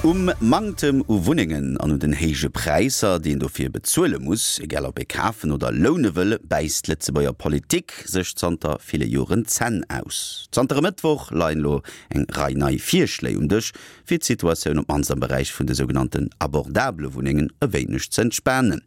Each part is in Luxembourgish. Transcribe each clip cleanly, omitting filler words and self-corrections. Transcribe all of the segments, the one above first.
Um Manktem u Wunnengen an un den héije Präisser, déi een dofir bezuele muss, egal ob ee kafen oder loune wëll, bäisst d'Lëtzebuerger Politik sech zanter ville Joren d'Zänn aus. Zanter e Mëttwoch leien elo eng Rei nei Virschléi um Dësch, fir d'Situatioun op d'mannst am Beräich vun de sougenannten abordabele Wunnengen e wéineg ze entspanen.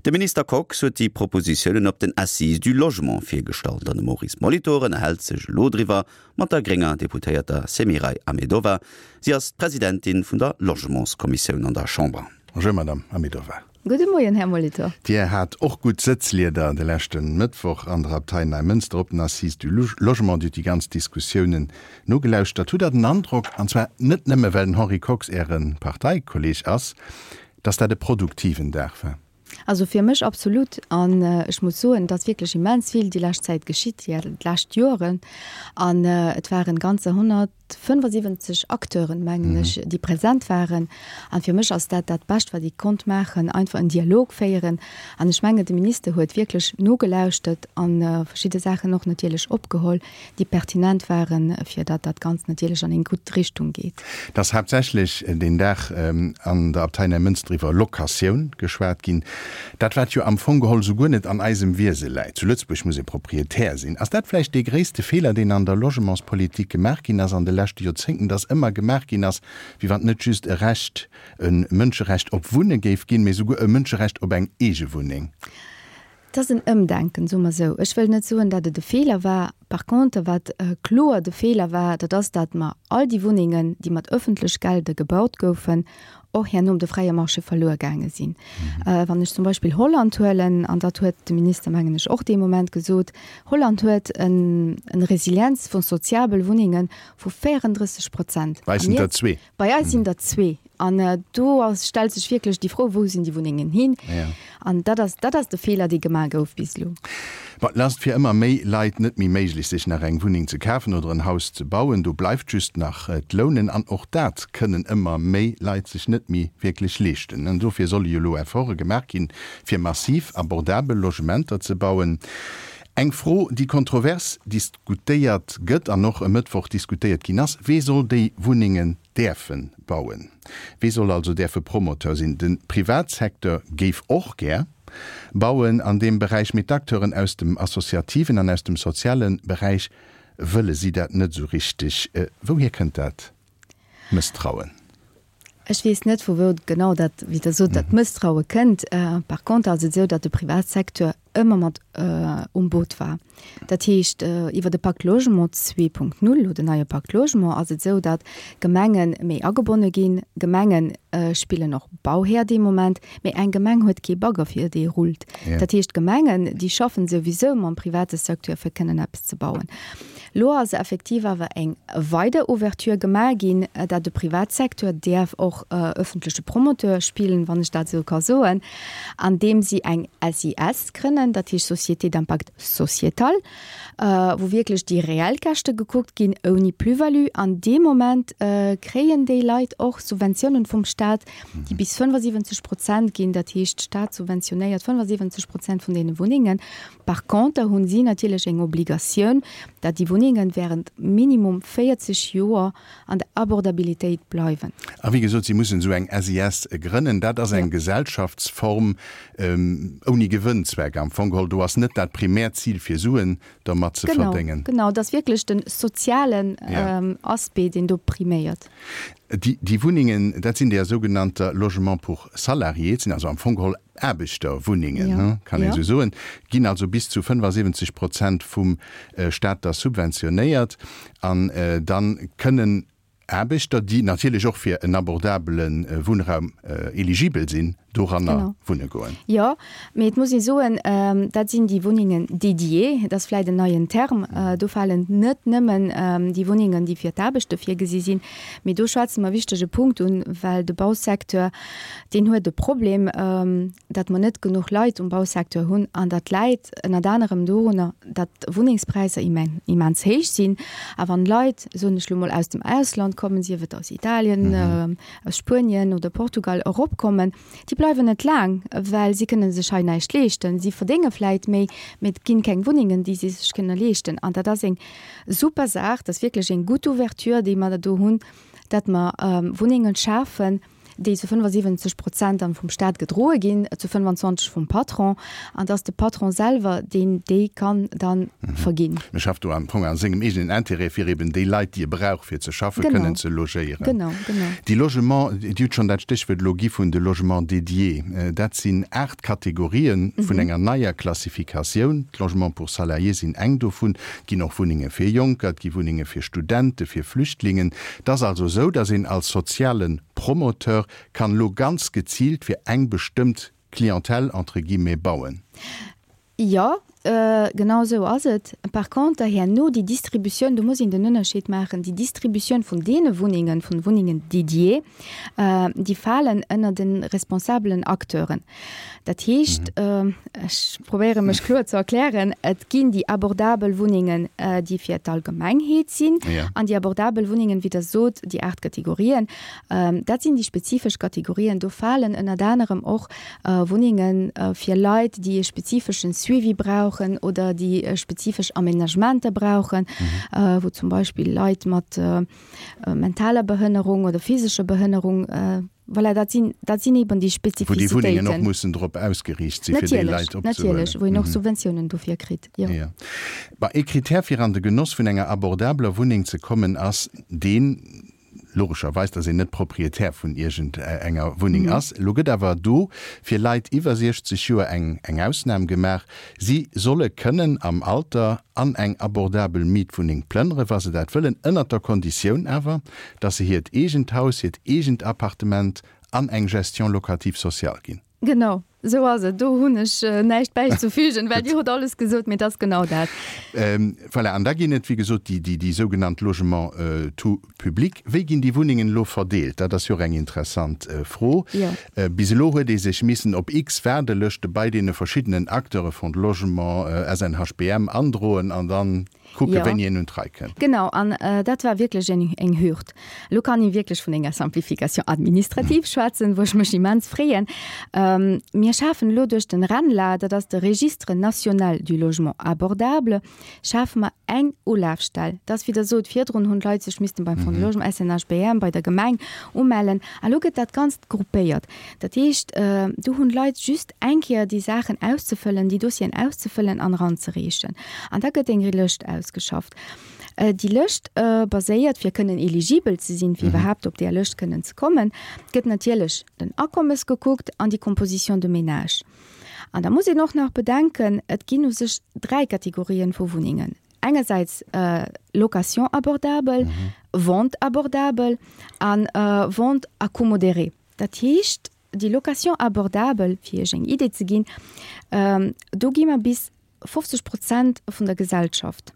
De Minister Kox huet déi Propositiounen op den Assises du Logement virgestallt an de Maurice Molitor ënnerhält sech elo driwwer mat der grénger Deputéierter Semiray Ahmedova. Si ass d'Presidentin vun der Logementskommissioun an der Chamber. Bonjour Madame Ahmedova. Gudde Moien, Här Molitor. Dir hat och gutt Sëtzlieder de leschte Mëttwoch an der Abtei Neimënster op den Assises du Logement. Dir hutt déi ganz Diskussiounen nogelauschtert. Hutt Der den Androck, an zwar net nëmme well den Henri Kox Äre Parteikolleeg ass, datt dat e produktiven Dag war? Also fir mech absolut. An ech muss soen, et ass wierklech immens vill déi lescht Zäit geschitt, déi lescht Joren. An et waren ganzer 175 Acteuren, mengen ech, déi present waren. An fir mech ass dat dat Bescht, wat ee konnt maachen, einfach en Dialog féieren. An ech mengen, de Minister huet wierklech nogelauschtert a verschidde Saachen och natierlech opgeholl. déi pertinent waren, fir datt dat Ganzt natierlech an eng gutt Richtung geet. Et ass haaptsächlech deen Dag an der Abtei Neimënster iwwer Locatioun geschwat ginn. Dat wat jo am Fong geholl souguer net an eisem Wiese läit. Zu Lëtzebuerg muss ee Proprietär sinn. Ass dat vläicht dee gréisste Feeler, deen an der Logementspolitik gemaach ginn ass an de leschte Joerzéngten, datt ëmmer gemaach ginn ass, wéi wann et net just e Recht, e Mënscherecht op Wunne géif ginn, mee souguer e Mënscherecht op eng eege Wunneng? Et ass en Ëmdenken, soe mer esou. Ech wëll net soen, datt et e Feeler war. Par contre, wat kloer de Feeler war, dat ass, datt mer all déi Wunnengen, déi mat ëffentlech Gelder gebaut goufen, och herno um de fräie Marché verluer gaange sinn. Wann ech zum Beispill Holland huelen, an dat huet de Minister, mengen ech, och dee Moment gesot, Holland huet en Resilienz vu soziabel Wunnenge vu 34 Prozent. Bei eis sinn der zwee. Bei eis sinn der zwee. An do ass, stellt sech wierklech déi Fro, Wou sinn déi Wunnengen hin? An dat ass, dat ass de Feeler, dee gemaach gouf bis elo. Bon, et ass fir ëmmer méi Leit net méi méiglech, sech nach eng Wunneng ze kafen oder en Haus ze bauen. Do bleift just nach d'Lounen. An och dat kënnen ëmmer méi Leit sech net méi wierklech leeschten. An dofir solle jo elo Efforte gemaach ginn, fir massiv abordabel Logementer ze bauen. Eng Fro, déi kontrovers diskutéiert gëtt an och e Mëttwoch diskutéiert ginn ass, Wee soll déi Wunnengen däerfe bauen? Wee soll also däerfe Promoteur sinn? De Privatsecteur géif och gär bauen an deem Beräich, mee d'Acteuren aus dem associativen an aus dem soziale Beräich wëlle si dat net esou richteg. Wouhier kënnt dat Mësstrauen? Ech weess net, vu wou genau dat, wéi Der sot, dat Mësstraue kënnt. Par contre ass et esou, datt de Privatsecteur ëmmer mat um Boot war. Dat heescht, iwwer de Pacte Logement 2.0 oder den neie Pacte Logement ass et esou, datt Gemenge méi agebonne ginn. Gemenge spillen och Bauhär dee Moment, mee eng Gemeng huet kee Bagger fir dee rullt. Dat heescht, d'Gemengen, déi schaffen souwisou mam private Secteur fir kënnen eppes ze bauen. Lo ass effektiv awer eng weider Ouverture gemaach ginn, dat de Privatsecteur däerf och öffentleche Promoteur spillen, wann ech dat esou ka soen, andeem si eng SIS grënnen, dat heescht Société d'impact sociétal, wou wierklech déi reell Käschte gekuckt ginn, ouni Plus-value. An dee Moment kréien déi Leit och Subventiounen vum Stat, déi bis 75 Prozent ginn. Dat heescht, d'Stat subventionéiert 75 Prozent vun deene Wunnengen. Par conter hunn si natierlech eng Obligatioun, dat déi Wunnengen während minimum 40 Joer an der Abordabilitéit bleiwen. A wéi gesot, si mussen esou eng SIS grënnen. Dat ass eng Gesellschaftsform ouni Gewënnzweck am Fong geholl. Do ass net dat primäert Zil, fir Suen dermat ze verdéngen. Genau, et ass wierklech de sozialen Aspect, deen do priméiert. Déi Wunnengen, dat sinn déi sougenannter Logements pour salariés, et sinn also am Fong geholl Aarbechterwunnengen, kann een esou soen, ginn also bis zu 75 Prozent vum Staat da subventionéiert. An da kënnen Aarbechter, déi natierlech och fir en abordabele Wunnraum eligibel sinn, doranner wunne goen. Jo, mee et muss ee soen, dat sinn déi Wunnengen dédiées, dat ass vläicht en neien Term. Do falen net nëmmen déi Wunnengen, déi fir d'Aarbechter virgesi sinn, mee do schwätze mer e wichtege Punkt un, well de Bausecteur, deen huet e Problem, datt mer net genuch Leit um Bausecteur hunn an dat läit ënnert anerem dorunner, datt d'Wunnengspräisser immens héich sinn. A wann Leit, soen ech lo mol, aus dem Ausland kommen, sief et aus Italien, aus Spuenien oder Portugal eropkommen, déi bleiwen net laang, well si kënne sech hei näischt leeschten. Si verdénge vläit méi, mee et ginn keng Wunnengen, déi si sech kënne leeschten. An dat ass eng super Saach, dat ass wierklech eng gutt Ouverture, déi mer do hunn. datt mer Wunnengen schafen, déi zu 75 Prozent dann vum Staat gedroe ginn, zu 25 vum Patron, an dass de Patron selwer deen déi kann dann verginn. E schafft do am Fong a sengem eegenen Intérêt, fir eben déi Leit, déi e brauch fir ze schaffen, kënnen ze logéieren. Genau, genau. Déi Logements, Dir hutt schonn dat Stéchwuert elo gi vun de Logements dédiés, dat sinn 8 Kategorien vun enger neier Klassifikatioun. D'Logements pour salariés sinn eng dovun. Et ginn och Wunnenge fir Jonker, et gi Wunnenge fir Studenten, fir Flüchtlingen. Et ass also esou, dass een als soziale Promoteur kann elo ganz geziilt fir eng bestëmmt Clientèle, entre guillemets, bauen. Jo, genau esou ass et. Par conter herno déi Distributioun, do muss een den Ënnerscheed maachen, déi Distributioun vun deene Wunnengen, vun Wunnengen dédiées, déi falen ënner de responsabelen Acteuren. Dat heescht, ech probéiere mech kloer ze erklären, et ginn déi abordabel Wunnengen, déi fir d'Allgemengheet sinn, an déi abordabel Wunnengen, wéi Der sot, déi 8 Kategorien, dat sinn déi spezifesch Kategorien. Do falen ënnert anerem och Wunnenge fir Leit, déi e spezifeschen Suivi brauchen oder déi spezifesch Aménagementer brauchen, wou zum Beispill Leit mat mentaler Behënnerung oder physescher Behënnerung, Voilà, dat sinn, dat sinn eben déi Wou déi Wunnengen och mussen drop ausgeriicht sinn, fir déi Leit opzehuelen. Natierlech, wou een och Subventiounen dofir kritt, jo. Jo. Bon, ee Krittär fir an de Genoss vun enger abordabeler Wunneng ze kommen ass deen, logescherweis, datt een net Proprietär vun iergend enger Wunneng ass. Elo gëtt awer do fir Leit iwwer 60 Joer eng, eng Ausnam gemaach. Si solle kënnen am Alter an eng abordabel Mietwunneng plënnere wa se dat wëllen, ënnert der Konditioun awer, dass se hiert eegent Haus, hiert eegent Appartement an eng Gestion locative sociale ginn. Genau, esou ass et. Do hunn ech näischt bäizefügen, well Dir hutt alles gesot, mee et ass genau dat. Voilà, an da ginn et, wéi gesot, déi, déi sougenannt Logements tout publics. Wéi ginn déi Wunnengen elo verdeelt? Dat ass jo och eng interessant Fro. Bis elo huet ee sech missen op x Waardelëschte bei deene verschiddenen Acteure, Fonds de Logement, SNHBM, androen an dann Kucke wéini een un d'Rei kënnt. Genau, an dat war wierklech eng eng Hürd. Elo kann ee wierklech vun enger Simplification administrative schwätzen, wou ech mech immens freeën. Mir schafen elo duerch den RENLA, dat ass de Registre national du logement abordable, schafe mer eng Ulafstell. Dat ass, wéi Der sot, virdrun hunn d'Leit sech missten beim Fonds de Logement, SNHBM, bei der Gemeng umellen. A lo gëtt dat Ganzt gruppéiert. Dat heescht, do hunn d'Leit just eng Kéier déi Saachen auszefëllen, déi Dossieren auszefëllen an eranzereechen. An da gëtt eng Lëscht ausgeschafft. Déi Lëscht baséiert, fir kënnen eligibel ze sinn, fir iwwerhaapt op där Lëscht kënnen ze kommen, gëtt natierlech den Akommes gekuckt an déi Composition de ménage. An da muss een och nach bedenken, et ginn u sech dräi Kategorien vu Wunnengen. Engersäits Location abordable, Vente abordable an Vente à coût modéré. Dat heescht, déi Location abordable, fir Iech eng Idee ze ginn, do gi mer bis 50 Prozent vun der Gesellschaft.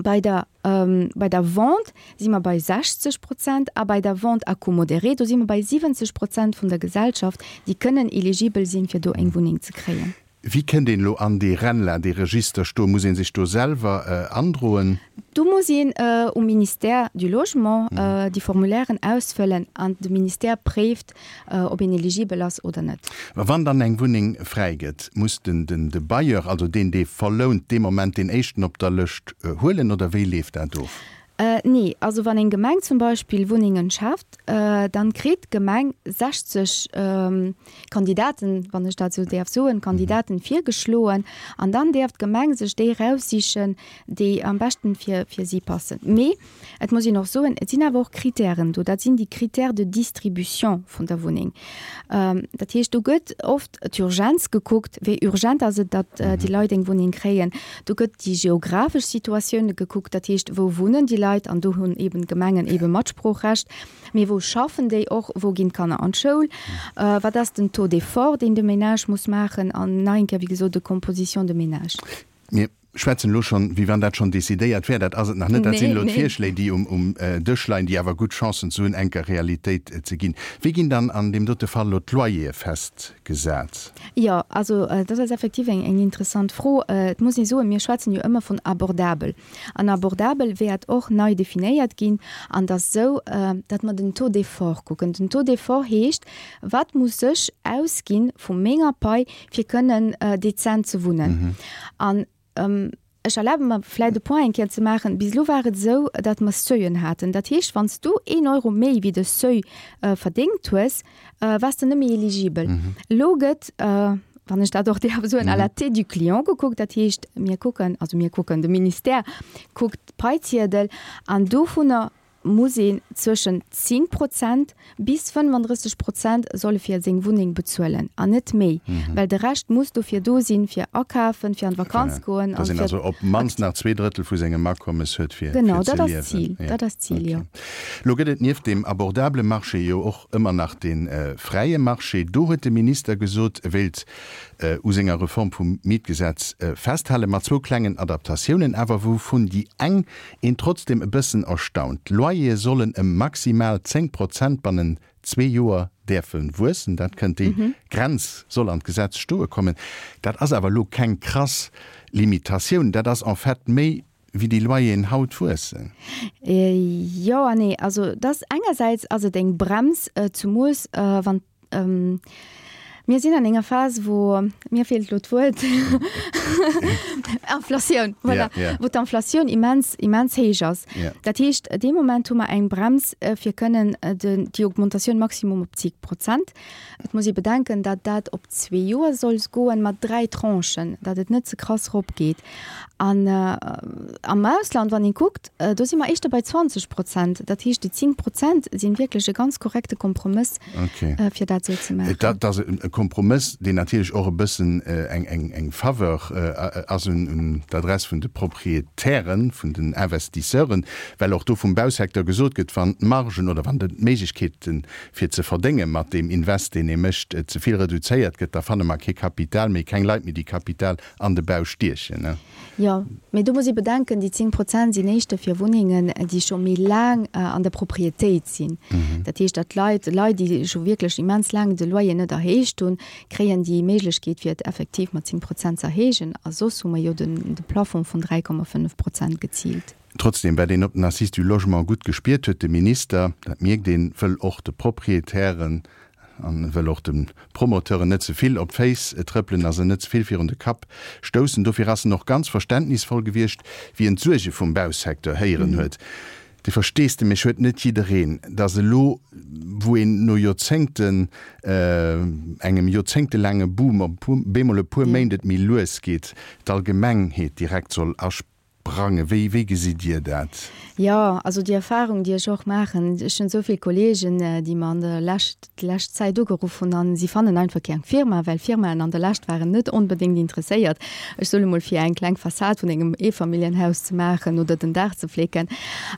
Bei der, bei der Vente si mer bei 60 Prozent a bei der Vente à coût modéré, do si mer bei 70 Prozent vun der Gesellschaft, déi kënnen eligibel sinn, fir do eng Wunneng ze kréien. Wéi kënnt een elo an dee RENLA, dee Register do? Muss ee sech do selwer androen? Do muss een um Ministère du Logement déi Formulairen ausfëllen an de Ministère préift, ob een eligibel ass oder net. Mä wann dann eng Wunneng fräi gëtt, muss den de Bailleur, also deen, dee verlount, dee Moment deen éischten op der Lëscht huelen oder wéi leeft dat of? Nee, also wann eng Gemeng zum Beispill Wunnengen schaaft, dann kritt d'Gemeng 60 Kandidaten, wann ech dat esou däerf soen, Kandidaten virgeschloen an dann däerf d'Gemeng sech déi eraussichen, déi am beschten fir fir si passen. Mee et muss een och soen, et sinn awer och Kritären do, dat sinn déi Critères de distribution vun der Wunneng. Dat heescht, do gëtt oft d'Urgenz gekuckt, wéi urgent ass et, datt déi Leit eng Wunneng kréien. Do gëtt déi geographesch Situatioun gekuckt, dat heescht, wou wunnen déi Leit, an do hunn eeben d'Gemengen eebe Matsproochrecht, mee wou schaffen déi och, wou ginn d'Kanner an d'Schoul, wat ass den Taux d'effort, deen de Ménage muss maachen, an nach eng Kéier, wéi gesot, de Composition de ménage. Mir schwätzen elo schonn, wéi wann dat schonn decidéiert wär. Dat ass et nach net. Dat sinn elo d'Virschléi, déi um Dësch leien, déi awer gutt Chancen ze hunn, enker Realitéit ze ginn. Wéi ginn dann an deem dote Fall elo d'Loyere festgesat? Jo, also dat ass effektiv eng interessant Fro. Et muss ee soen, mir schwätzen jo ëmmer vun abordabel. An abordabel wäert och nei definéiert ginn. An et ass esou, datt mer den Taux d'effort kucken. Den Taux d'effort heescht, Wat muss ech ausgi vu menger Pai, fir kënnen dezent ze wunnen. An. Ech erlabe mer vläicht e Point eng Kéier ze maachen. Bis elo war et esou, datt mer Seuilen haten. Dat heescht, wann s du een Euro méi wéi de Seuil verdéngt hues, waars de net méi eligibel. Elo gëtt, wann ech dat och däerf soen, à la tête du client gekuckt. Dat heescht, mir kucken, also mir kucken, de Ministère kuckt d'Paiziedel an dovunner muss een zwëschen 10 Prozent bis 35 Prozent solle fir seng Wunneng bezuelen an net méi, well de Rescht muss dofir do sinn, fir akafen, fir an d'Vakanz goen an fir. Dass een also op d'mannst nach zweedrëttel vu sengem Akommes huet, fir ze liewen. Genau, dat ass d'Zil, dat ass d'Zil, jo. Lo gëtt et nieft deem abordabele Marché jo och ëmmer nach dee fräie Marché. Do huet de Minister gesot, e wéilt u senger Reform vum Mietgesetz festhalen, mat zwou klengen Adaptatiounen awer, wouvun déi eng Een trotzdem e bëssen erstaunt, D'Loyere sollen ëm maximal 10 Prozent bannen zwee Joer däerfe wuessen. Dat kënnt, déi Grenz soll an d'Gesetz stoe kommen. Dat ass awer elo keng krass Limitatioun, dat ass en fait méi wéi déi Loyeren haut wuessen. Jo an nee. Also et ass engersäits ass et eng Brems, zemoos wann Mir sinn an enger Phas, wou, mir feelt elo d'Wuert, Inflatioun, voilà, wou d'Inflatioun immens, immens héich ass. Dat heescht, dee Moment hu mer eng Brems, fir kënnen déi Augmentatioun maximum op 10 Prozent. Et muss ee bedenken, datt dat op zwee Joer soll goen, mat dräi Tranchen, datt et net ze krass eropgeet. An am Ausland, wann ee kuckt, do si mer éischter bei 20 Prozent. Dat heescht, déi 10 Prozent si wierklech e ganz korrekte Kompromëss, fir dat esou ze maachen. Dat ass e Kompromëss, deen natierlech och e bëssen eng Faveur ass un d'Adress vun de Proprietären, vun den Investisseuren, well och do vum Bausecteur gesot gëtt, wann d'Margen oder wann d'Méiglechkeeten, fir ze verdénge mat deem Invest, deen ee mécht, ze vill reduzéiert gëtt, da fanne mer kee Kapital méi, keng Leit méi, déi Kapital an de Bau stiechen, ne? Jo, mee do muss ee bedenken, déi 10 Prozent sinn éischter fir Wunnengen, déi scho méi laang an der Proprietéit sinn. Dat heescht, datt Leit, Leit, déi scho wierklech immens laang de Loyer net erhéicht hunn, kréien déi Méiglechkeet, fir et effektiv mat 10 Prozent ze erhéijen. A soss hu mer jo de Plafond vun 3,5 Prozent geziilt. Trotzdem, wat een op den Assises du Logement gutt gespiert huet, de Minister, dat mierkt een, wëll och de Proprietären an wëll och de Promoteuren net ze vill op d'Féiss trëppelen a se net ze vill virun de Kapp stoussen. Dofir ass en och ganz verständnisvoll gewiescht, wéi en d'Suerge vum Bausecteur héieren huet. De Versteesdemech huet net jiddereen, datt elo, wou een no Joerzéngten, engem joerzéngtelaange Boom, op bemol e puer Méint et méi lues geet, d'Allgemengheet direkt soll Brange, wéi, wéi gesitt Dir dat? Jo, also déi Erfahrung, déi ech och maachen, ech hunn esou vill Kolleegen, déi mer an der Lescht, déi lescht Zäit ugeruff hunn an si fannen einfach keng Firma, well Firmaen an der Lescht waren net onbedéngt interesséiert, ech soen emol, fir eng kleng Fassad vun engem Eefamilljenhaus ze maachen oder den Daach ze flécken.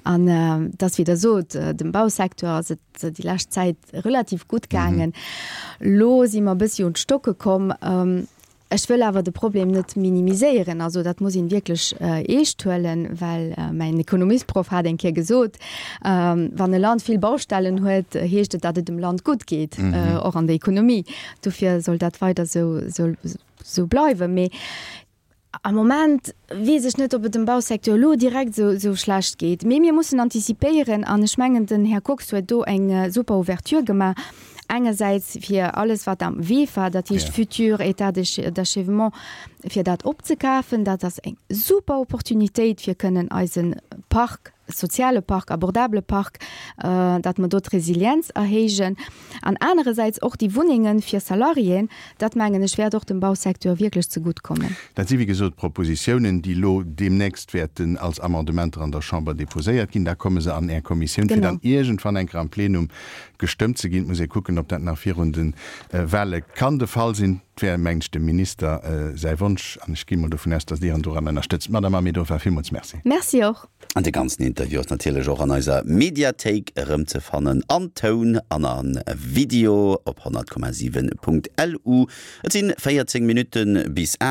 An et ass, wéi Der sot, dem Bausecteur ass et déi lescht Zäit relativ gutt gaangen. Elo si mer e bëssi un d'Stocke komm. Ech wëll awer de Problem net minimiséieren. Also dat muss een wierklech eescht huelen, well mäin Ekonomiesproff hat eng Kéier gesot, wann e Land vill Baustellen huet, heescht et, datt et dem Land gutt geet, och an der Ekonomie. Dofir soll dat weider esou bleiwen. Mee am Moment weess ech net, ob et dem Bausecteur elo direkt esou schlecht geet. Mee mir mussen antizipéieren an ech mengen, den Här Kox huet do eng super Ouverture gemaach. Engersäits fir alles wat am Wee war, dat heescht futur État d'achèvement, fir dat opzekafen. Dat ass eng super Opportunitéit fir kënnen eise Park, soziale Park, abordabele Park, datt mer do d'Resilienz erhéijen. An anerersäits och déi Wunnenge fir Salariéen, dat mengen ech wäert och dem Bausecteur wierklech zegutt kommen. Dat si wéi gesot Propositiounen, déi elo deemnächst wäerten als Amendementer an der Chamber déposéiert ginn. Da komme se an Är Kommissioun, fir dann iergendwann eng Kéier am Plenum Gestëmmt ze ginn. Et muss ee kucken, ob dat nach virun de Wahle kann de Fall sinn. Et wär, mengen ech, dem Minister säi Wonsch an ech gi mol dovun aus, datt Dir en doran ënnerstëtzt. Madame Ahmedova, villmools Merci. Merci och. An de ganzen Interview ass natierlech och an eiser Mediathéik erëmzefannen, an Toun an a Video op 100,7.lu. Et sinn 14 Minutte bis 8.